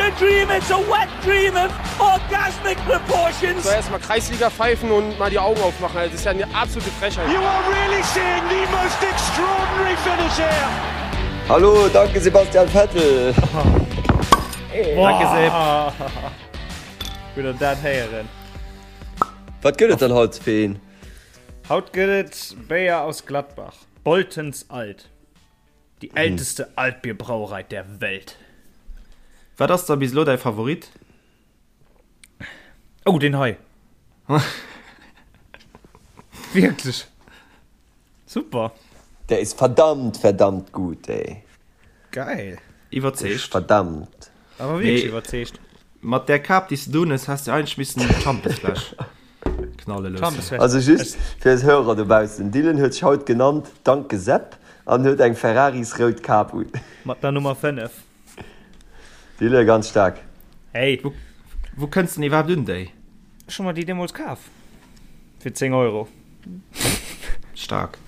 a dream, it's a wet dream of orgasmic proportions. So erstmal Kreisliga pfeifen und mal die Augen aufmachen. Also, das ist ja eine absolute Frechheit. You are really seeing the most extraordinary finish here. Hallo, danke Sebastian Vettel. Danke Seb. Gutt an dat héieren. Wat gëtt et dann haut fir een? Haut gëtt et Béier aus Gladbach, Boltens Alt. Die älteste Altbierbrauerei der Welt. Wat ass da bis elo däi Favorit? Oh, deen hei. Wierklech super. Der ist verdammt, verdammt gut, ey. Geil. Iwwerzeegt. Verdammt. Awer wierklech iwwerzeegt. Mat där Kap déi s de do hunn hues, häss de eigentlech missen d'Schampesfläsch knalle loossen. Also just fir eis Hörer dobaussen, Dylan huet sech haut genannt Danke Sepp an huet eng Ferraris-rout Kap un. Mat der Nummer 5. Dylan, ganz staark. Hey. Wou kënns de denn iwwerhaapt un déi? Ech hu mer déi deemools kaf. Fir 10 Euro. Staark.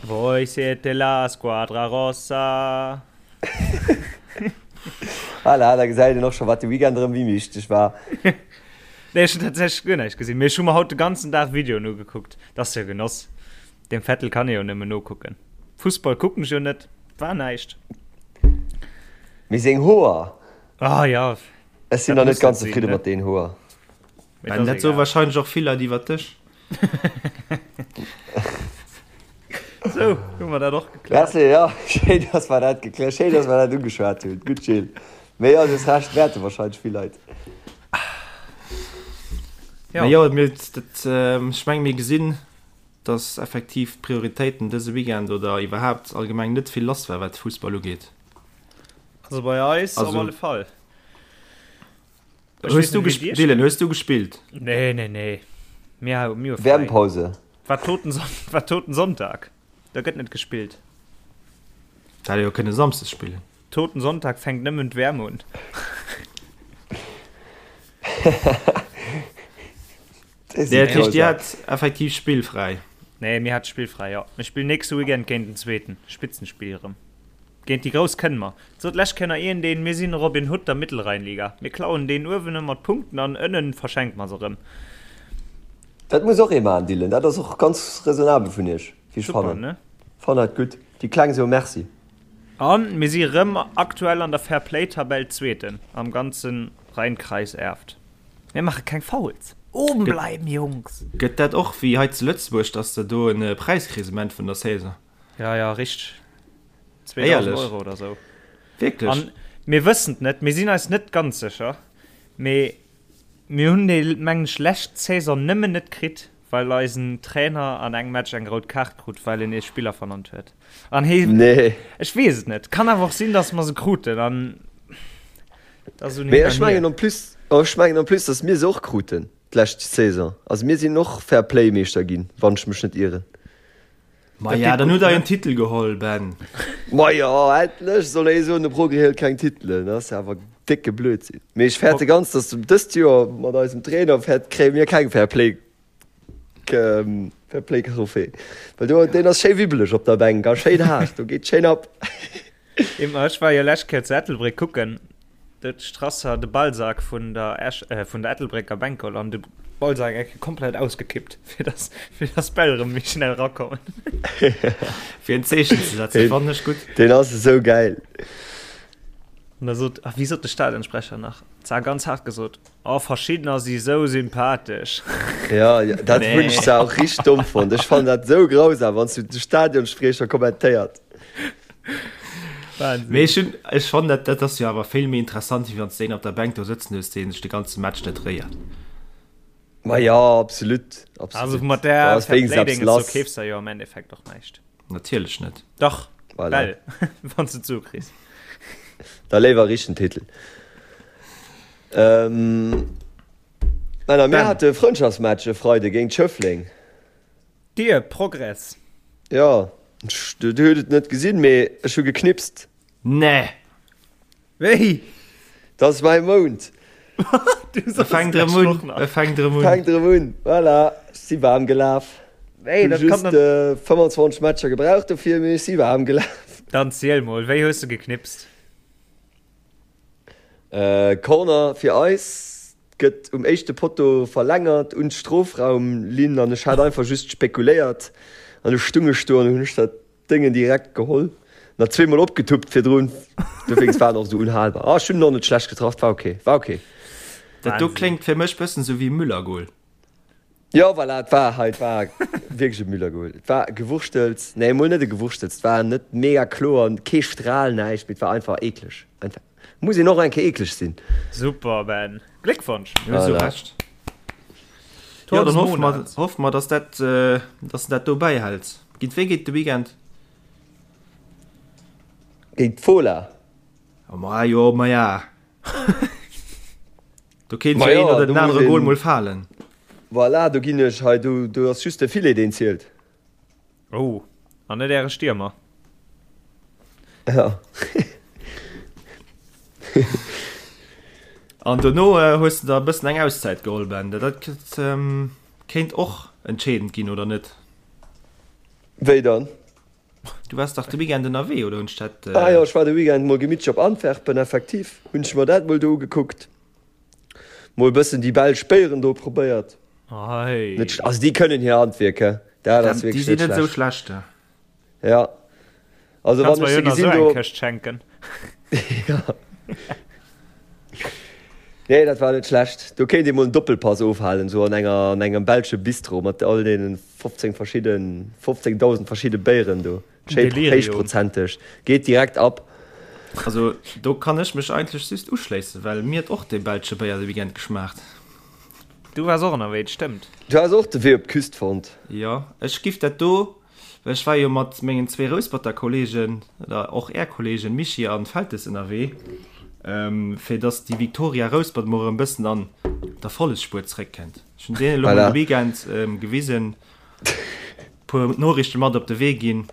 Voi siete la squadra rossa. Voilà, da gesäit een och scho wat de Weekend erëm wéi wichteg war. Nee, ech hunn tatsächlech guer näischt gesinn, mee ech hu mer haut de ganzen Dag Videoen ugekuckt. Dat ass jo Genoss. Dem Vettel kann ee jo nëmmen nokucken. Fussball kucken ech jo net, war näischt. Mee seng Hoer! Ah ja. Ech sinn nach net ganz zefridde mat den Hoer. Ben, dat soe wahrscheinlech och vill Leit iwwer dech. Sou, hu mer dat och gekläert. Merci, jo, schéin, dass mer dat gekläert, schéin, dass mer dat ugeschwat hunn. Gutt, Gilles. Mee jo, du hues Recht, wäerte wahrscheinlech vill Leit. Ja. Mee jo, mir, dat, ech menge mir gesinn, dass effektiv d'Prioritéiten dëse Weekend oder iwwerhaapt allgemeng net vill lass war, wat Fussball ugeet. Also bei eis op alle Fall. Hues du gespielt? Dylan, hues du gespielt? Nee, nee, nee. Mir, mir hu Wärmpause. War Toten, war Toten Sonntag. Da gëtt net gespillt. Da hätt jo kënne Samsdes spillen. Toten Sonntag fänkt nëmmen d'Wärm un. Nee, dat heescht, Dir hat effektiv spillfräi? Nee, mir hat spillfräi, jo. Mir spillen nächste Weekend géint den Zweeten. Spitzenspill erëm. Géint déi Grouss kënne mer. Sot lech Kenner een deen, mir sinn Robin Hood der Mittelrheinliga. Mir klauen deen uewen ëmmer d'Punkten an ënnen verschenke mer se erëm. Dat muss och ee maachen, Dylan. Dat ass och ganz raisonnabel vun iech, wéi ech fannen. Fannen dat gutt. Déi Kleng soe Merci. An mir si rëm aktuell an der Fair Play Tabell Zweeten am ganze Rheinkreis Erft. Mir maache keng Fouls. Oben bleiben, Jungs! Gëtt dat och wéi hei zu Lëtzebuerg, dass de do en Präis kriss um Enn vun der Saison? Ja, ja, richteg. 2000 Euro oder sou. Wierklech? An mir wëssen et net, mir sinn eis net ganz sécher, mee mir hunn déi, mengen ech, lescht Saison nëmmen net kritt, well eisen Trainer an engem Match eng rout Kaart krut, well en ee Spiller vernannt huet. An hee, Nee. ech weess et net, kann awer och sinn, datt mer se kruten an dat ass un Mee hin ech an hier. mengen en plus, ech mengen en plus, datt mir se och kruten d'lescht Saison. Also mir sinn och Fair-Play-Meeschter ginn, wann ech mech net ieren. Maja, dann hutt der en Titel geholl, Ben. Maja, endlech soll ee soen, de Progrès hëlt keng Titelen. Dat ass jo awer décke Blödsinn. Mee ech fäerte ganz, datt dëst Joer mat eisem Trainer fäert, kréie mir keng Fair Play, Fair Play Trophée. Well do, deen ass schéi wibbeleg op der Bänk a schéin haart, do geet schéin ab. Ech war jo lescht Kéier zu Ettelbréck kucken. Do huet de Strasser de Ballsak vun der Esch, vun der Ettelbrécker Bänk geholl an de Ballsak eng Kéier komplett ausgekippt, fir dass, fir dass d'Bäll erëm méi schnell erakommen. Fir en Zeechen ze setzen, fannen ech gutt. Deen ass esou gäil. An da sot, ach wéi sot de Stadionsprecher nach, zwar ganz haart gesot, Oh, verschiddener si sou sympathesch. Ja, dat hunn ech zwar och richteg domm fonnt. Ech fannen dat sou grausam, wann s du de Stadionspriecher kommentéiert. Wahnsinn. Mee ech hunn, ech fannen dat, dat ass jo awer vill méi interessant, wéi wann s de een op der Bänk do sëtzen hues, dee sech de ganze Match net réiert. Ma jo, absolut, absolut. Also mat där Da ass wéinstens eppes Fairplay-Dinges do lass. keefs der jo am Endeffekt och näischt. Natierlech net. Dach, Voilà. well, wann s de d'Sue kriss. Da léiwer richten Titel. Ähm, Männer, mir hate e Frëndschaftsmatch e Freide géint Schëffleng. Dir, Progress. Jo, du huet et net gesinn, mee ech hu geknipst. Nee! Wéi? Dat ass mäi Mount. Du E soss fänkt d'lescht erëm Woch un, nach. e fänkt erëm un. Fänkt erëm un, voilà. Ech si waarm gelaf. Wéi, Hu dat kann just dann. 25 Matcher gebraucht dofir, mee ech si waarm gelaf. Dann ziel mol, wéi hues de geknipst? Corner fir eis, gëtt um éischte Potto verlängert un d'Strofraumlinn an ech hat einfach just spekuléiert an du stung ech do an hunn ech dat Déngen direkt geholl, nach zweemol opgetuppt virdrun, dowéinst war en och esou unhalbar. Ah, ech hunn en och net schlecht getraff, war ok, war ok. Dat do kléngt fir mech bëssen sou wéi Müller-Goal. Jo, voilà, et war hei, et war wierklech e Müller-Goal. Et war Gewurschtels, nee, emol net e Gewurschtels, et war net mega kloer, kee Stral, näischt, mee et war einfach eekleg. Einfach, muss een och eng Kéier eekleg sinn. Super, Ben, Gléckwonsch! Hues du Recht. Jo, dann hoffe mer, hoffe mer, dass dat, dass de dat do bäihäls. Géint wee geet de Weekend? Géint d'Fola. Oh, ma jo, ma ja. Do kéint jo een oder den anere Goal mol falen. Voilà, do ginn ech hei, do, do ass just de Filet, deen zielt. Oh, an net äre Stiermer. Ja. An dono hues de der e bëssen eng Auszäit geholl, Ben. Dat kéint och entscheedend ginn, oder net? Wéi dann? Du waars dach de Weekend ënnerwee, oder hunn ech dat. Ah jo, ech war de Weekend mol gemittlech op Antwerpen, effektiv hunn ech mer dat mol do ugekuckt. Mol bëssen déi belsch Béieren do probéiert. Ei. Net sch also déi kënnen hir Handwierk, he. Dat ass Déi wierklech sinn net net esou schlecht. schlecht, he. Ja. Also Kanns wann mer ech jo se nach gesinn esou eng do. Këscht schenken. Ja. Nee, dat war net schlecht. Do kéint ee mol en Doppelpass ofhalen, esou an enger an engem belsche Bistro mat all deenen 15 verschidden 15.000 verschidde Béieren do. Schéi Delirium. héichprozenteg. Geet direkt ab. Also do kann ech mech eigentlech just uschléissen, well mir huet och dee belsche Béier de Weekend geschmaacht. Du waars och ënnerwee, et stëmmt. Du has och de Wee op d'Küst fonnt. Jo, ech giff dat do, well ech war jo mat mengen zwee Rousperter Kollegen, oder och är Kollegen Mischii an Feltes ënnerwee, fir dass déi Victoria Rouspert mol erëm bëssen an d'Erfollegsspuer zeréckkënnt. Ech hunn deenen elo mol Voilà. de Weekend gewisen, Puer Noriichte mat op de Wee ginn,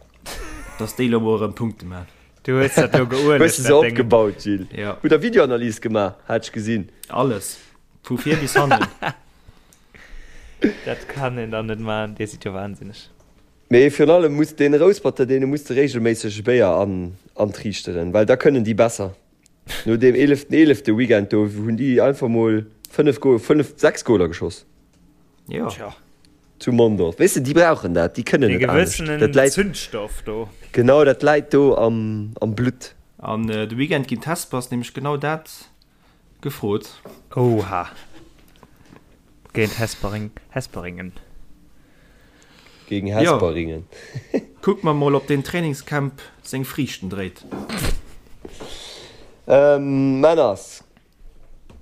dass déi lo mol erëm Punkte man. Du hues dat do Hues geuelegt, de se dat Déng. opgebaut, Gilles? Ja. Hutt der Videoanalys gemaach, hat ech gesinn. Alles. Vu vir bis hannen. Dat kann een dann net man, dir sidd jo wahnsinneg. Mee virun allem muss deen Rousperter, deene muss de regelméisseg e Béier an antriichteren, well da kënnen déi besser. No deem eeleften eelefte Weekend do hunn déi einfach mol 5 Goal, 5, 6 Goaler geschoss. Jo. Tja. Zu Mondorf. Weess de, déi brauchen dat, déi kënnen Dee net anescht. gewëssenen Dat läit, Zündstoff do. genau, dat läit do am, am Blutt. An de Weekend ginn d'Hespers nämlech genau dat gefrot. Oha. Géint Hespering, Hesperingen. Gegen Jo. Hesperingen. Kucke mer mol, ob deen Trainingscamp seng Friichten dréit. Männers,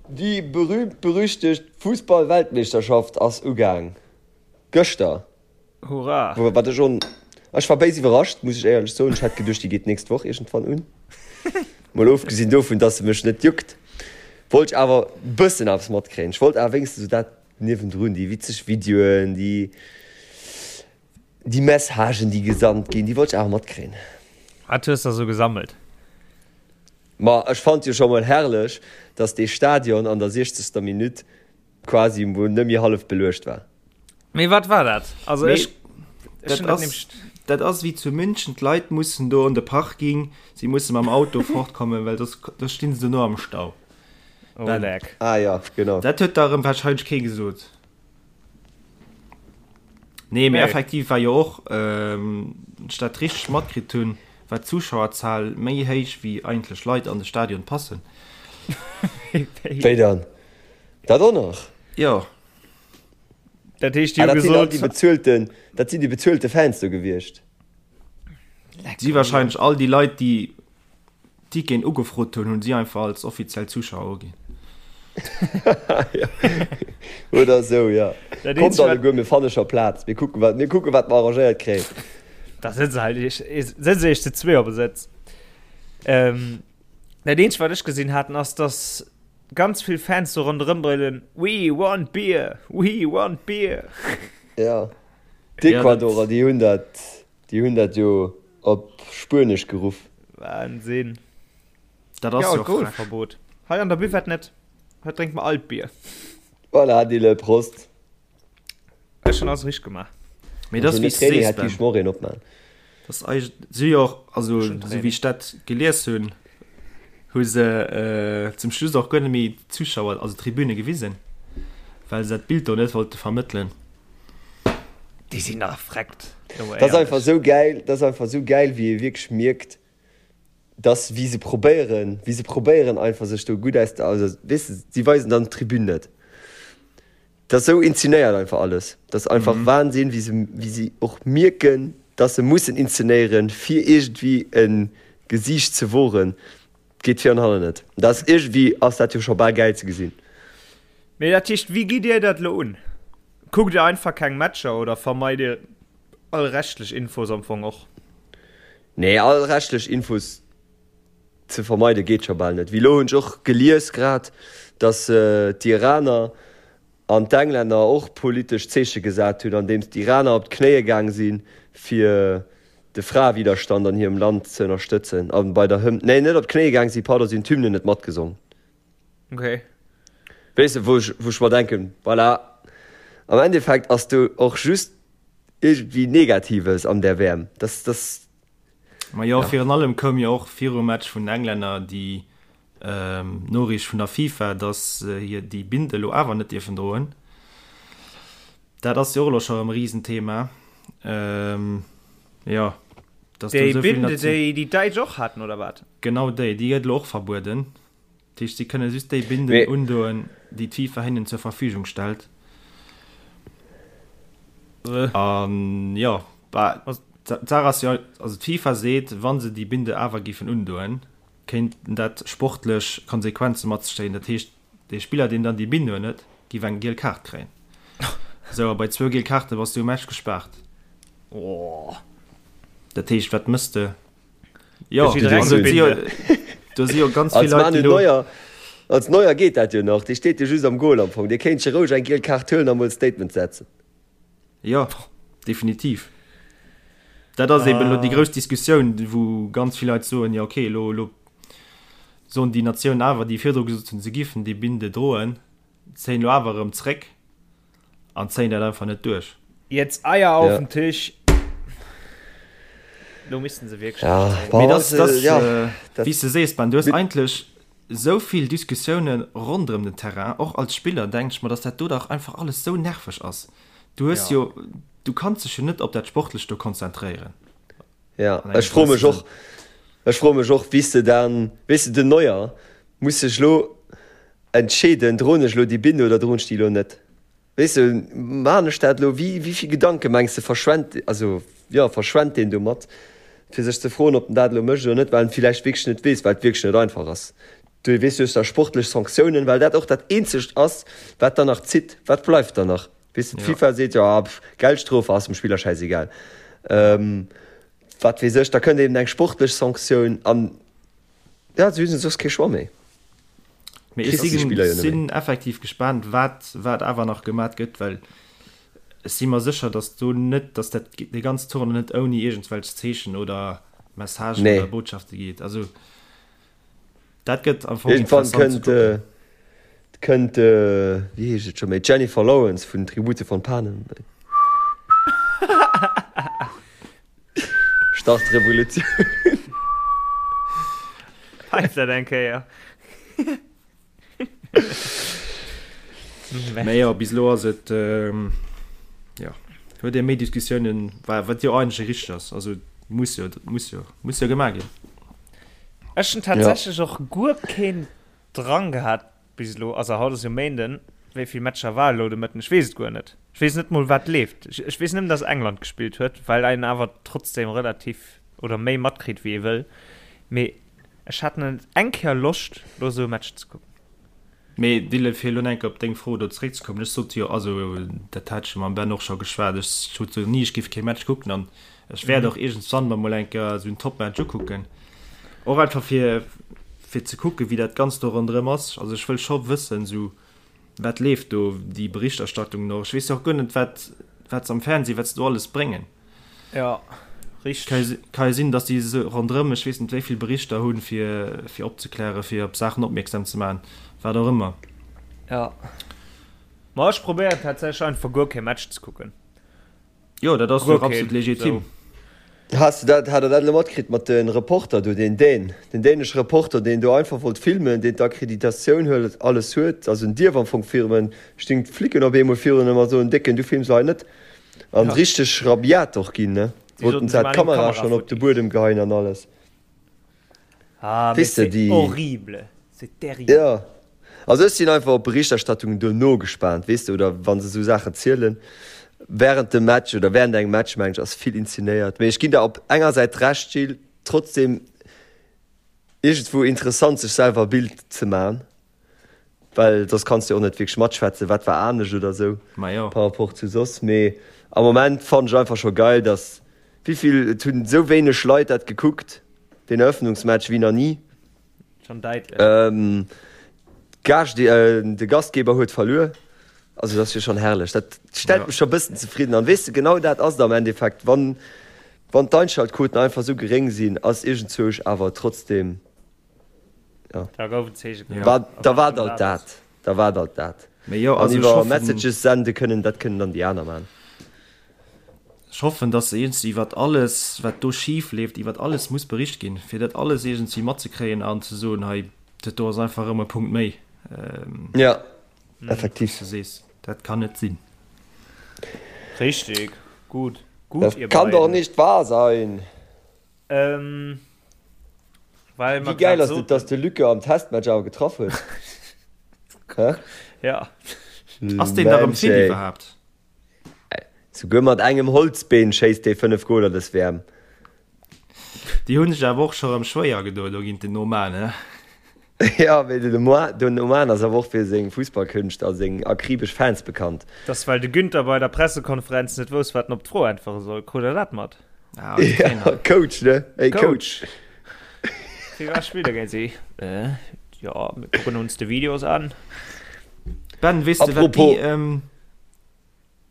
Déi berühmt-berüchtegt Fussball-Weltmeeschterschaft ass ugaang. Gëschter. Hurra! Wat ech on, ech war béis iwwerrascht, muss ech éierlech soen. Ech hat geduecht, déi geet d'nächst Woch iergendwann un. Mol ofgesinn dovun, dass se mech net juckt, wollt ech awer bëssen eppes matkréien. Ech wollt awer wéinstens esou dat niewendrun, déi witzeg Videoen, déi, déi Messagen, déi gesandt ginn, déi wollt ech awer matkréien. Wat hues de sou gesammelt? Ma ech fand jo scho mol herrlech, dass dee Stadion an der siechzegster Minutt quasi mol net méi hallef beluecht war. Mee wat war dat? Also Mee ech, ech dat hunn dat ass, nämlech. dat ass wéi zu München, d'Leit mussen do an de Parking, si musse mam Auto fortkommen, well soss, soss stinn se dono am Stau. Oh Ben. leck. Ah ja, genau. Dat huet der erëm wahrscheinlech kee gesot. Nee, mee Nee. effektiv war jo och, wann ech dat richteg matkritt hunn, war d'Zuschauerzahl méi héich wéi eigentlech Leit an de Stadion passen. Wéi dann? Dat och nach? Jo. Dat heescht, déi Ah, hu dat sinn all gesot. déi bezuelten, dat sinn déi bezuelte Fans do gewiescht. Si wahrscheinlech all déi Leit, déi Ticketen ugefrot hunn, hunn si einfach als offiziell Zuschauer uginn. Oder esou, jo. Dat Kommt eenzegt, wat- alleguer, mir fanne scho Plaz. Mir kucken, wat, mir kucken, wat mer arrangéiert kréien. Da sëtze halt iech, sëtze iech zu zwee op e Sëtz. Ähm, dat eenzegt, wat ech gesinn haten, ass, dass ganz vill Fans do ronderëm brüllen, We want beer! We want beer! Ja. D'Ecuadorer, déi hunn dat, déi hunn dat jo op Spuenesch geruff. Wahnsinn. Dat ass Ja, jo frech. Alkoholverbot. Hei an der Buvette net. Hei drénkt mer alt Bier. Voilà, Dille, Prost. Ech hunn alles richteg gemaach. Mee dat ass Ohne wéi s du Training sees, hätt Ben. gi ech mer och een opmaen. Dat ass eig si jo och, also Ech hunn esou wéi ech dat gelies hunn. Hu se zum Schluss och guer net méi d'Zuschauer, also d'Tribüne gewisen, well se dat Bild do net wollte vermëttelen. Déi sinn nach freckt. Dat ass einfach esou gäil, dat ass einfach esou gäil, wéi ee wierklech mierkt, dass wéi se probéieren, wéi se probéieren einfach sech do gutt aus der, also weess de, si weisen dann d'Tribün net. Dat ass esou inzenéiert einfach alles. Dat ass einfach Wahnsinn, wéi se, wéi si och mierken, dass se mussen inzenéieren, fir iergendwéi e Gesiicht ze woren. Geet vir an hannen net. Dat ass iergendwéi ass dat jo scho bal gäil ze gesinn. Mee dat heescht, wéi gitt Dir dat elo un? Kuckt Dir einfach keng Matcher oder vermeit Dir all rechtlech Infos am Fong och? Nee, all rechtlech Infos ze vermeide geet scho bal net. Wéi elo hunn ech och gelies grad, datt d'Iraner an d'Englänner och politesch Zeeche gesat hunn, andeems d'Iraner op d'Knéie gaang si fir de Fraewiderstand an hirem Land ze ënnerstëtzen a bei der Hymn, nee net op d'Knéie gaang si, pardon, si hunn d'Hymne net matgesong. Okay. Weess de, wou ech, wou ech mer denken, voilà, am Endeffekt ass do och just iergendwéi Negatives an där WM. Das, das. Ma jo, virun allem koum jo och virum Match vun den Englänner déi Noriicht vun der FIFA, dass se hir déi Binde elo awer net dierfen droen. Dat ass jo och elo scho erëm e Risenthema. Jo, dass do esou vill. Déi Binde, déi déi Däitsch och haten, oder wat? Genau déi, déi gëtt elo och verbueden. Dat heescht, si kënne just déi Binden undoen, déi d'FIFA hinnen zur Verfügung stellt. An jo, bah, d'Saach ass jo, also d'FIFA seet, wa se déi Binde awer géifen undoen, kéinten dat sportlech Konsequenze mat sech zéien. Dat heescht, dee Spiller, deen dann déi Binde unhuet, géif eng giel Kaart kréien. Esou, a bei zwou giel Kaarte bass du um Match gespaart. Dat heescht, wat mëss de? Jo, also, si jo, do si jo ganz vill Leit, déi lo. Neuer, als Neuer geet dat jo nach, dee steet jo just am Goal am Fong, dee kéint scho roueg eng giel Kaart huelen a mol e Statement setzen. Jo, definitiv. Dat ass eben elo déi grouss Diskussioun, wou ganz vill Leit soen, jo okay, elo, elo soen déi Natiounen awer, déi virdru gesot hunn, se giffen déi Binde droen, zéien elo awer erëm zréck. An zéien dat einfach net duerch. Jetzt Eier auf den Tisch! Lo missten se wierklech ja. duerchzéien. Mee das, das, ja, äh, dat, wéi s de sees, Ben, du hues eigentlech esou vill Diskussiounen ronderëm den Terrain, och als Spiller denk ech mer, dass dat do dach einfach alles esou nerveg ass. Du hues ja. jo, du kanns dech jo net op dat Sportlecht do konzentréieren. Ja, ech froe mech och, ech froe mech och, wéi s de dann, weess de, den Neuer muss sech lo Entscheeden, droen ech elo déi Binde oder droen ech déi elo net? Weess de, maachen ech dat elo? Wéi, wéi vill Gedanke mengs de verschwent, also jo, verschwent deen domat, fir sech ze froen, ob en dat elo mécht oder net, well en et villäicht wierklech net weess, well et wierklech net einfach ass. Du weess, du hues da sportlech Sanktiounen, well dat och dat eenzegt ass, wat dann nach zitt. Wat bleift dann nach? Weess de, d'FIFA seet, jo, pff, Geldstrof ass dem Spiller schäisegal. Wat weess ech, da kënnt eben eng sportlech Sanktioun an Ja, si hunn soss kee Choix méi. Mee ech sinn effektiv gespaant, wat, wat awer nach gemat gëtt, well ech si mer sécher, datt do net, datt dat dee ganzen Tournoi net ouni iergendwelch Zeechen oder Messagen nee. oder Botschafte geet. Also dat gëtt am Fong Irgendwann kënnt, äh, kënnt äh, wéi heescht et scho méi, Jennifer Lawrence vun Tribute von Panem. Start Revolutioun. Peif dat eng Kéier. Mee jo, bis elo ass et, jo, huet ee méi Diskussiounen, wat jo eigentlech richteg ass. Also muss jo, muss jo, muss jo gemaach ginn. Ech hunn tatsächlech och guer keen Drang gehat Bis elo, also haut ass jo Méinden, wéi vill Matcher war elo de Mëtten? Ech weess et guer net. Ech weess net mol wat leeft. Ech, ech weess nëmmen, dass England gespillt huet, well een awer trotzdem relativ oder méi matkritt wéi ee wëll. Mee ech hat net eng Kéier Loscht lo esou e Match ze kucken. Mee Dylan, fir elo nach eng Kéier op deng Fro do zeréckzekommen, ech sot jo, also dat hat ech jo mam Ben och scho geschwat, ech sot jo ni, ech géif kee Match kucken an ech wäert och iergendswann mer mol eng Kéier esou en Topmatch ukucken. Och einfach fir fir ze kucken, wéi dat Ganzt do ronderëm ass. Also ech wëll scho wëssen, esou wat leeft do, déi Berichterstattung och. Ech weess jo och guer net, wat wat se am Fernseh, wat se do alles bréngen. Jo, richteg. Ka jo sinn, datt déi esou ronderëm, ech weess net wéi vill Berichter hunn, fir fir opzeklären, fir op Saachen opmierksam ze maachen, wat och ëmmer. Jo. Ma ech probéieren tatsächlech einfach guer kee Match ze kucken. Jo, dat ass jo och absolut legitim. Has de dat, hat der dat elo matkritt mat de Reporter do, deen Dän, den dänesche Reporter, deen do einfach wollt filmen, deen d'Akkreditatioun huet, alles huet, also en dierf am Fong filmen, stinn d'Flicken op eemol virun em a soen, Décken, du films hei net. An richteg rabiat och ginn, ne? Wollten se d'Kamera schonn op de Buedem geheien an alles. Ah, mais c'est horrible, c'est terrible. Jo, also ech sinn einfach op d'Berichterstattung duerno gespaant, weess de, oder wa se esou Saachen zielen. Während dem Match oder während engem Match, mengen ech, ass vill inzenéiert. Mee ech ginn der op enger Säit Recht, Gilles, trotzdem iergendwou interessant, sech selwer e Bild ze man. Well soss kanns de och net wierklech matschwätzen, wat war anescht oder sou par rapport zu soss. Mee am Moment fannen ech einfach scho geil, dass wéivill, et hunn esou wéineg Leit dat gekuckt, deen Eröffnungsmatch, wéi nach ni. Schon däitlech. D'Gaascht, de Gastgeber huet verluer. Also dat ass jo schonn herrlech. Dat stellt mech scho bëssen zefridden. An weess de, genau dat ass et am Endeffekt, wann, wann d'Einschaltquoten einfach esou geréng sinn, ass iergendzwousch awer trotzdem. Ja. Da gouf en Zeeche gemaach. War, da war alt dat. Da war alt dat. Mee jo, An also ech iwwer hoffen, Messages sende kënnen, dat kënnen dann déi aner man. ech hoffen, dass iergendwéi iwwert alles, wat do schif leeft, iwwert alles muss bericht ginn, fir dat alles iergendwéi matzekréien an ze soen, hei, dat do ass einfach erëm e Punkt méi. Ja, effektiv. Wéi s de sees, dat kann net sinn. Richtig. Gut. Gut, Das ihr kann doch beiden. nicht wahr sein! Ähm, well Wéi mer gäil grad ass et, soten. dass de Luca am Testmatch awer getraff huet? Hä? Ja. Ass deen da rëm Mensch, fit ey. iwwerhaapt? Souguer mat engem Holzbeen schéisst dee 5 Goler dës WM. Déi hunn sech awer och scho rëm schwéier gedoen do géint den Oman, he? Ja, mee den Oman, den Oman ass awer och fir seng Fussballkünscht a seng akribesch Fans bekannt. Dass well de Günther bei der Pressekonferenz net wousst, wat en op d'Fro äntwere soll. Krut der dat mat? Ah, den Ja, Trainer. Coach, ne? Hey, Coach. Coach. Wie war Spieler géint si? Äh, ja, mir kucken uns de Videos an. Ben, weess de, wat Apropos. déi, ähm,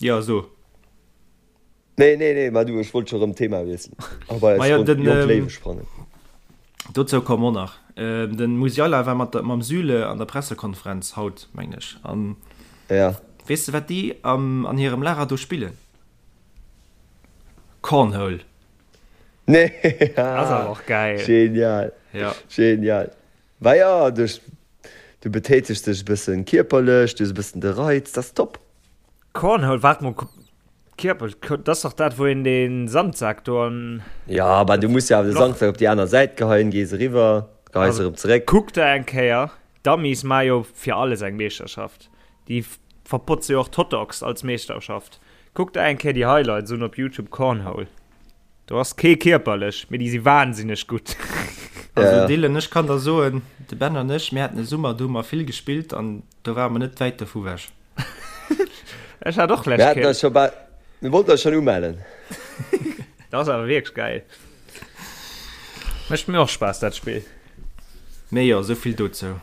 ja, so. Nee, nee, nee, ma du, ech wollt scho rëm d'Thema wiesselen a bei eis Majo, Jonk den, Jonk ähm, Léiwe sprangen. Dozou komme mer och nach. Ähm, den Musiala war mat der, mam Süle an der Pressekonferenz haut, mengen ech. An Ja. weess de, wat déi am, an hirem Lager do spillen? Cornhole. Nee, Ass awer och geil. Genial. Ja. Genial. Wa ja, du, du betätegs dech e bëssen kierperlech, du hues e bëssen de Reiz, dat ass top. Cornhole, waart mol, Kierper, dat ass dach dat wou een den Sandsak do an. Ja, bah du muss jo awer de Sandsak op déi aner Säit geheien, gees eriwwer, geheis erëm zeréck. Kuck der eng Kéier, d'Amis maa jo fir alles eng Meeschterschaft, déi verpotze jo och d'Hotdogs als Meeschterschaft. Kuck der eng Kéier déi Highlights un op Youtube Cornhole, do ass kee kierperlech, mee déi si wahnsinneg gutt. Also Dylan, ech kann der soen, de Ben an ech, mir haten e Summer, do hu mer vill gespillt an do ware mer net wäit dovu wech. Ech hat och Mir lech haten Kéier. eis scho bal, mir wollten eis schon umellen. Dat ass awer wierklech geil. Mécht mir och Spaass dat Spill. Mee jo, esou vill dozou.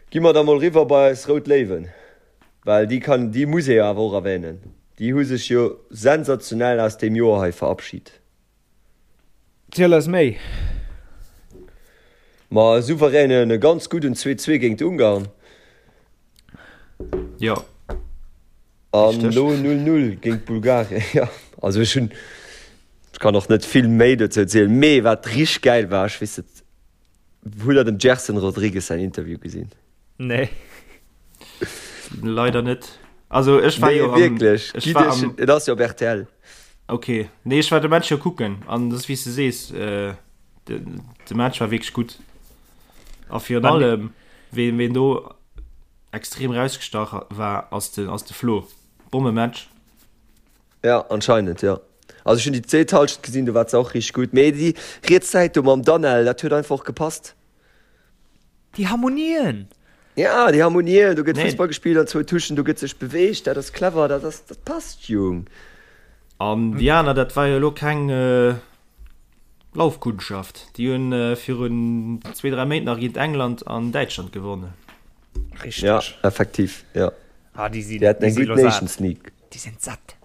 Gi mer da mol riwwer bei eis Rout Léiwen, well déi kann, déi muss ee jo awer och erwänen. Déi hu sech jo sensationell aus deem Joer hei verabschit. Ziel eis méi! Ma e souveränen, e ganz gudden 2, 2 géint Ungarn. Jo. An elo 0, 0 géint Bulgarien. Jo, also ech hunn, ech kann och net vill méi dozou zielen, mee wat richteg gäil war, ech weess net, hutt der dem Gerson Rodrigues säin Interview gesinn? Nee. Leider net. Also ech war Nee, jo am, wierklech. ech Gitt war iech, am, et ass jo op rtl. okay. Nee, ech war de Match jo kucken an das wéi s de sees, äh, de, de Match war wierklech gutt. A virun Wann- allem, ween, ween do extrem rausgestach war, ass de, ass de Flo. Bommematch. Ja, anscheinend, jo. Also ech hunn déi zweet Halschent gesinn, do war se och richteg gutt. Mee déi riets Säit do mam Danel, dat huet einfach och gepasst. Déi Harmonien! Ja, déi Harmonien, do gëtt Nee. Fussball gespillt an zwou Touchen, do gëtt sech beweegt, dat ass clever, dat ass, dat passt, Jung. An déi aner, dat war jo elo keng Laufkundschaft. Déi hunn virun zwee, dräi Méint nach géint England an Däitschland gewonnen. Richteg. Ja, effektiv, ja. Ah, déi sinn, Déi haten déi eng si gutt lo sat. Nations League. Déi sinn satt.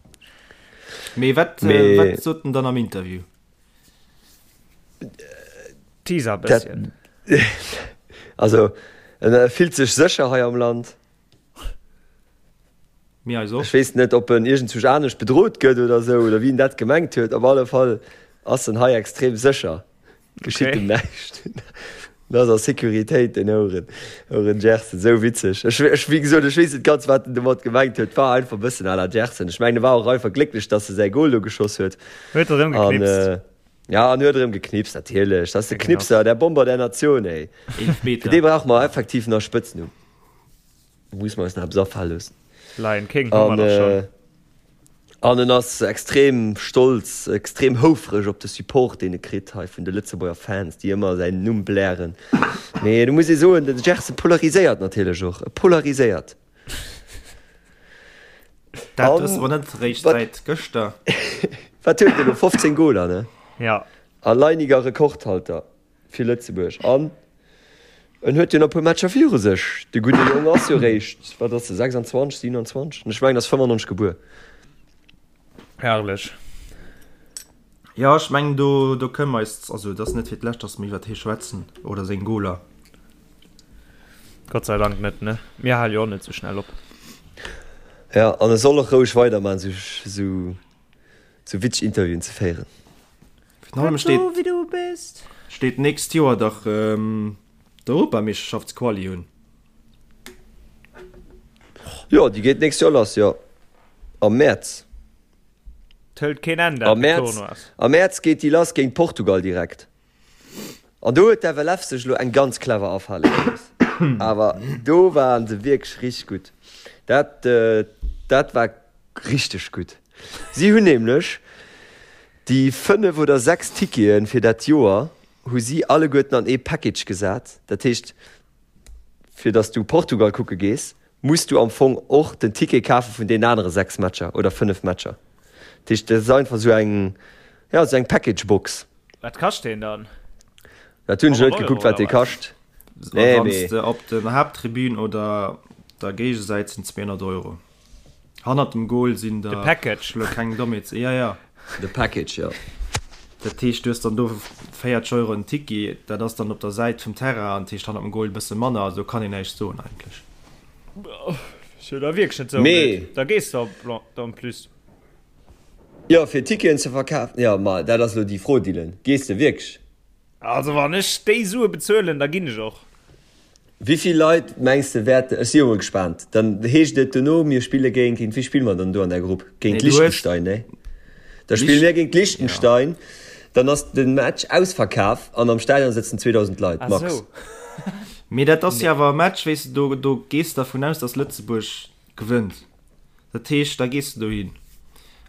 Mee wat, Mee. wat sot en dann am Interview? Teaser bësschen. Also en fillt sech sécher hei am Land. Mir eis och. Ech weess net, ob en iergendzwousch anescht bedrot gëtt oder esou, oder wéi en dat gemengt huet. Op alle Fall ass en hei extrem sécher. Geschitt em näischt. En ass a Sécuritéit, den Ouren, Ouren Gerson. Esou witzeg. Ech, ech, wéi gesot, ech weess net ganz, wat en domat gemengt huet. War einfach e bëssen à la Gerson. Ech mengen, e war och einfach glécklech, dass e säi Gol do geschoss huet. Huet erëm geknipst. An, ja, an huet erëm geknipst, natierlech. Dat ass de Knipser, der Bomber der Nation, ey. Fir dee brauche mer effektiv nach e Spëtznumm. Muss mer eis nach eppes afale loossen. Lion King hu mer dach schonn. An en ass extrem stolz, extrem houfreg op de Support, deen e kritt hei vun de Lëtzebuerger Fans, déi ëmmer säin Numm blären. Mee do muss ee soen, de Gerson polariséiert natierlech och. E polariséiert. Dat wësse mer net eréischt säit gëschter. Wat huet en elo? 15 Goler, ne? Ja. Alleiniger Rekordhalter. Fir Lëtzebuerg. An en huet jo nach e puer Matcher viru sech. De gudde Jong ass jo réischt, wat ass e, 26, 27? Ech mengen, ass 95 gebuer. Herrlech. Jo, ech mengen, do, do kënne mer eis, also et ass net fir d'lescht, datt mer iwwert hie schwätzen oder seng Goler. Gott sei Dank net, ne? Mir hale jo och net sou schnell op. Ja, an e soll och roueg weiderman, sou, sou, sou witzeg Interviewen ze féieren. Virun allem steet, wéi du bist. Steet d'nächst Joer dach d'Europameeschterschaftsquali un. Jo, déi geet d'nächst Joer lass, jo. Am Mäerz. D'hëlt keen Enn, dat Tournoi. Am Mäerz geet déi lass géint Portugal direkt. An do huet d'FLF sech elo eng ganz clever afale gelooss. Awer do waren se wierklech richteg gutt. Dat, dat war richteg gutt. Si hunn nämlech déi 5 oder 6 Tickete fir dat Joer hu si alleguerten an ee Package gesat. Dat heescht, fir datt s du Portugal kucke gees, muss du am Fong och den Ticket kafe vun deenen anere 6 Matcher oder 5 Matcher. Dat heescht, dat ass einfach esou eng, jo, esou eng Package-Box. Wat kascht deen dann? Dat hunn ech net gekuckt, wat dee kascht. Nee, Wann s de op der Haapttribün oder der Géigesäit sinn 200 Euro. Hannert dem Goal sinn der. De Package. Elo keng Dommheet. Ja, ja. De Package, jo. Dat heescht, du hues dann do 40 Euro en Ticket, dat ass dann op der Säit vum Terrain, an dat heescht hannert dem Goal e bësse manner. Also do kann een näischt soen eigentlech. Ass jo da wierklech net sou blöd. Da gees de op en plus. Jo, fir Ticketen ze verkafen, jo, ma dat ass elo déi Fro, Dylan. Gees de wierklech? Also wann ech déi Sue bezuelen, da ginn ech och. Wéi vill Leit mengs de wäerten, ech si jo mol gespaant, dann heescht et dono, mir spille géint, géint wie spille mer dann do an der Grupp? Géint Liechtenstein, nee? Da spille mir géint Liechtenstein, dann ass de Match ausverkaf an am Stadion sëtzen 2.000 Leit, max. Mee dat ass jo awer e Match, weess de, do, do gees de dervun aus, datt Lëtzebuerg gewënnt. Dat heescht, da gees de dohin.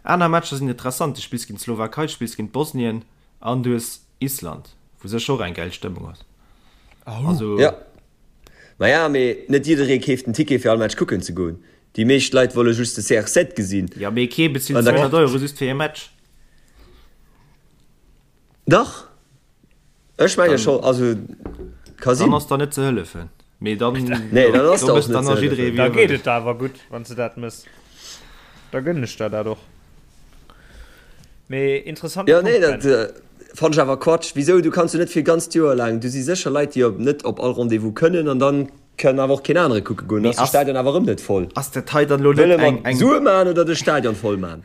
Aner Matcher sinn interessant, du spills géint d'Slowakei, du spills géint Bosnien an du hues Island, wou sécher och eng gäil Stëmmung ass. Also. Jo. Maja, mee net jidderee keeft en Ticket fir all Match kucken ze goen. Déi meescht Leit wolle just de CR7 gesinn. Jo, mee kee bezilt 200 Euro just fir ee Match. Dach, ech menge scho, also ka sinn. Dann ass der net ze hëllefen. Mee dann, nee, dann ass der och net ze hëllefen. Da geet et der awer gutt, wann s de dat mëss. Da gënnen ech der dat och. Mee interessante Punkt, Ben. Jo, nee, dat fannen ech awer Quatsch. Wisou? Du kanns jo net fir e ganzt Joer laang, do si sécher Leit, déi op net op all Rendez-vous kënnen an dann kann awer och keen anere kucke goen. Dann ass de Stadion awer erëm net voll. Ass dat hei dann elo net eng. Wëlle mer Sue maachen oder de Stadion voll maachen?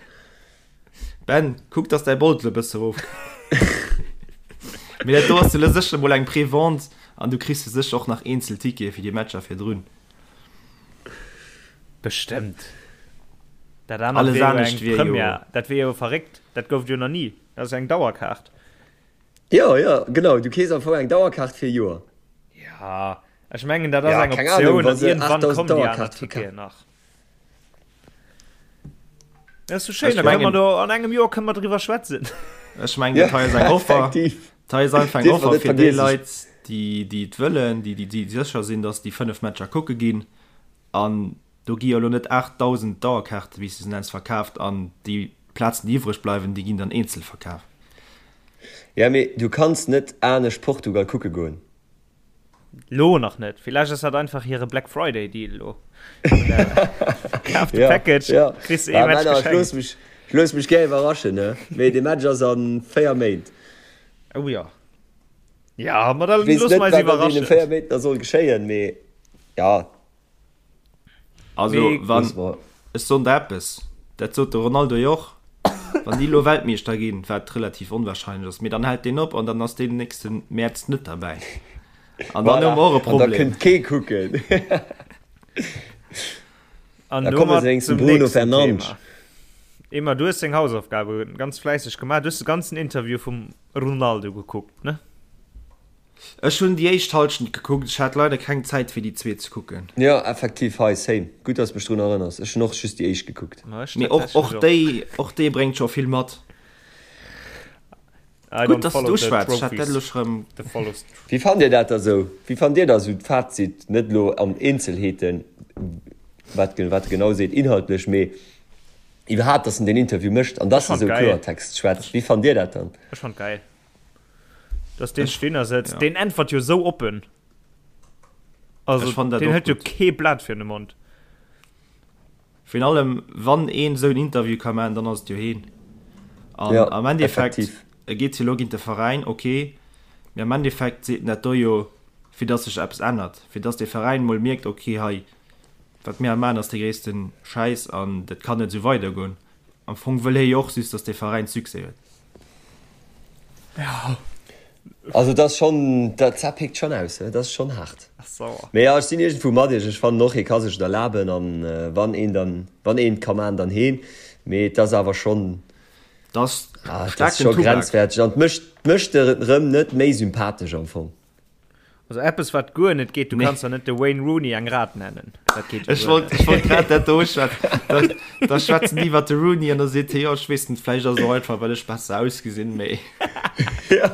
Ben, kuck dass däi Boldel e bësse rof Mee dat do ass jo lo sécher mol eng Prévente an du kriss jo sécher och nach eenzel Tickete fir déi Matcher virdrun. Bestëmmt. Dat anert Alles wier jo anescht eng wier jo. Première. Dat wier jo verréckt. Dat gouf et jo nach ni. Dat ass eng Dauerkaart. Jo, jo, genau. Du keefs am Fong eng Dauerkaart fir e Joer. Ja, ech mengen dat ass Ja, eng keng Ahnung, Optioun wa an se iergendwann 8000 kommen déi aner Dauerkaarte Ticketen verkafen. nach. Dat ass so schéin, da kënne mer do an engem Joer kënne mer driwwer schwätzen. Ech mengen, dat hei ass eng Offer. Dat hei ass einfach eng Offer fir déi Leit, déi déi et wëllen, déi déi sécher sinn, datt déi 5 Matcher kucke ginn. An do gi jo elo net 8.000 Dauerkaarte, wéi s du se nenns, verkaaft an déi Plazen, déi iwwreg bleiwen, déi ginn dann eenzel verkaaft. Ja, mee du kanns net anescht Portugal kucke goen. Lo nach net. Villäicht ass dat einfach hire Black Friday Deal lo. Kaf de Package, ja, kriss ee Match geschenkt. Ech looss mech, ech looss mech gär iwwerraschen, ne? Mee de Match ass an 4 Méint. Oh ja. Ja, ma da loosse mer eis iwwerraschen. Weess net, wat an deene 4 Méint da soll geschéien, mee ja. Also, wann. Ech soen der eppes, dat sot de Ronaldo jo och, wann déi elo Weltmeeschter ginn, wat relativ onwahrscheinlech ass, mee dann hält deen op an dann ass deen nächste Mäerz net derbäi. An dann hu mer och e An da Problem. kënnt kee kucken. An Da komme domat se wéinstens zum Bruno nächsten Fernandes. Thema. Emma, du hues deng Hausaufgabe ganz fläisseg gemaach. Du hues de ganzen Interview vum Ronaldo gekuckt, ne? Ech hunn déi éischt Halschent gekuckt, ech hat leider keng Zäit fir déi zweet ze kucken. Jo, effektiv, hei, same. Gutt, dass mech drun erënners. Ech hunn och just déi éischt gekuckt. Ma ech Mee och, tatsächlech och och. déi, och déi bréngt scho vill mat. I Gutt, don't dass du et follow the uschwätz, ech hat dat trophies, elo scho rëm. the follows. Wéi fannt dir dat da sou? Wéi fannt dir da sou d'Fazit, net elo an Eenzelheeten, wat wat e genau seet inhaltlech, mee iwwerhaapt, dass en deen Interview mécht an Ech dass e fand sou geil. Kloertext schwätzt? Wéi fannt dir dat dann? Ech fand geil. Dass deen Ech, Stinner sëtzt, ja. deen äntwert jo sou oppen. Also, Ech fand dat deen och hëlt jo gutt. kee Blat virun de Mond. Virun allem, wann een esou en Interview ka maachen, dann ass et jo heen. An Ja, am Endeffekt, effektiv. e geet jo elo géint de Veräin, ok, mee am Endeffekt seet en dat do jo, fir dass sech eppes ännert, fir dass dee Veräin mol mierkt, ok, hei, wat mir hei maachen, ass dee gréisste Schäiss an dat kann net esou weidergoen. Am Fong wëll hie jo och just, dass dee Veräin Succès huet. Ja. Also dat ass schonn, dat dat pickt schonn aus, dat ass schonn haart. Ass sauer. Mee jo, ech sinn iergendwou mat iech. Ech fannen och, hie ka sech et erlaben an wann een dann, wann een et ka maachen, dann heen. Mee et ass awer schonn, Dat ass ah, et ass staarken scho Tubak. grenzwäerteg an et mécht, mécht e rëm net méi sympathesch am Fong. Also eppes wat guer net geet, du Nee. kanns der net de Wayne Rooney eng Rat nennen. Dat geet jo Ech guer wollt, net. ech wollt grad dat do uschwätzen. Da, da schwätzen déi iwwer de Rooney an da seet hie, jo, ech weess net, vläicht ass et och einfach, well ech besser ausgesinn, mee. Jo,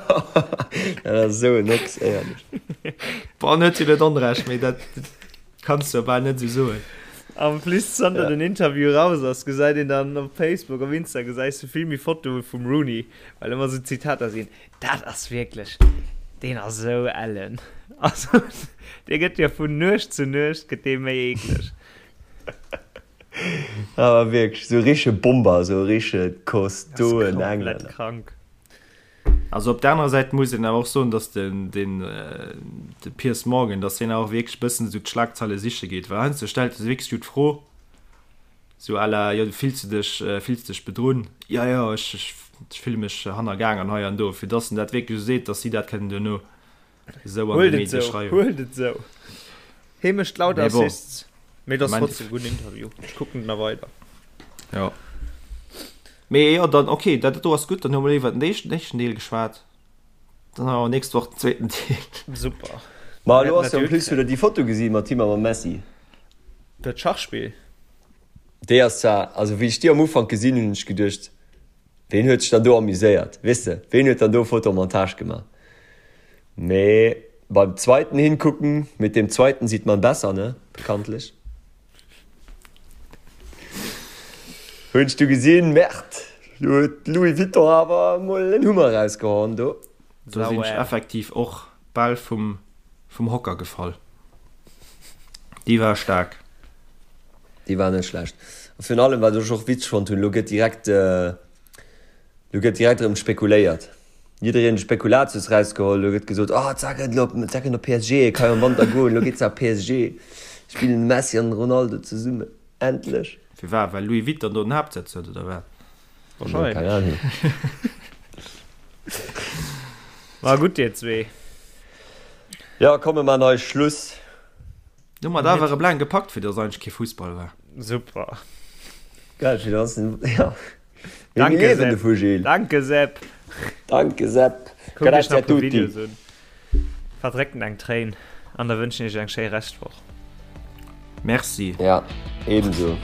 dat ass esou en Ochs, éierlech. Bon, en huet jo net Onrecht, mee dat kanns du jo bal net esou soen. En plus, zanter Ja. den Interview raus ass, gesäit een dann op Facebook, op Insta gesäis du vill méi Fotoe vum Rooney, well ëmmer esou Zitater sinn. Dat ass wierklech, deen ass esou ellen. Also, dee gëtt jo vun Nuecht zu Nuecht gëtt dee méi eekleg. Awer wierklech, esou e richtege Bomber, esou e richtege kostoen Komplett Englänner. krank. Also op der anerer Säit muss een awer och soen, datt den, den, de Piers Morgan, datt deen awer och wierklech e bëssen esou d'Schlagzeile siche geet, well heiansdo stellt e wierklech esou d'Fro, Sou à la, jo, fills du dech, fills dech bedrunn? Jo, jo, ech, ech, ech fille mech hannergaang an hei an do. Fir dass en dat wierklech esou seet, dass si dat kënnen duerno esou an de Huelt et Medie sou, schreiwen. huelt et sou. Hee mécht lauter Mee bon, Assists. Mee et ass am trotzdem e gudden Interview. Ech kucken et nach weider. Jo. Mee jo, dann, okay, dat do ass gutt. Dann hu mer iwwer den éischten, éischten Deel geschwat. Dann hu mer nächst Woch den zweeten Deel. Super. Ma elo ass jo en plus, hutt der déi Foto gesi mat him a mam Messi? Dat Schachspill? Déi ass zwar, also wéi ech déi am Ufank gesinn hunn, hunn ech geduecht, ween huet sech dann do amuséiert, weess de, ween huet dann do Fotomontage gemaach? Mee beim zweiten hingucken, mit dem zweiten sieht man besser, ne, bekanntlich. Hunn ech du gesinn, Merde, do huet Louis Vuitton awer emol en Hummer erausgehauen do. Do sinn ech effektiv och bal vum vum Hocker gefall. Déi war staark. Déi war net schlecht. A virun allem, wat ech och witzeg fonnt hunn, elo gëtt direkt, elo gëtt direkt erëm spekuléiert. Jiddereen huet Spekulatius rausgeholl, elo gëtt gesot, oh d'Sa gëtt elo, d'Sa kënnt op PSG, e ka jo am Wanter goen, elo geet se a PSG, spillen de Messi an de Ronaldo zesummen, endlech. Firwat? Well Louis Vuitton do den Haaptsëtz huet, oder wat? Wahrscheinlech. Keng Ahnung. War gutt, dir zwee. Jo, komm mir man hei Schluss. Hu mer et awer erëm laang gepackt, fir dass eigentlech kee Fussball war. Super. Geil, fir dass, ja. Mir Danke, liewen Sepp. dovu, Gilles. Danke, Sepp. Danke, Sepp. Kuckt iech Grazie nach a e puer tutti. Videos un. Verdréckt eng Tréin an da wënschen iech eng schéi Reschtwoch. Merci. Ja, ebenso.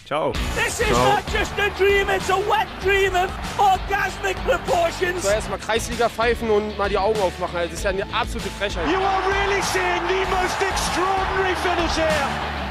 Ciao. This is not just a dream, it's a wet dream of orgasmic proportions. So erstmal Kreisliga pfeifen und mal die Augen aufmachen. Also, das ist ja eine absolute Frechheit. You are really seeing the most extraordinary finish here.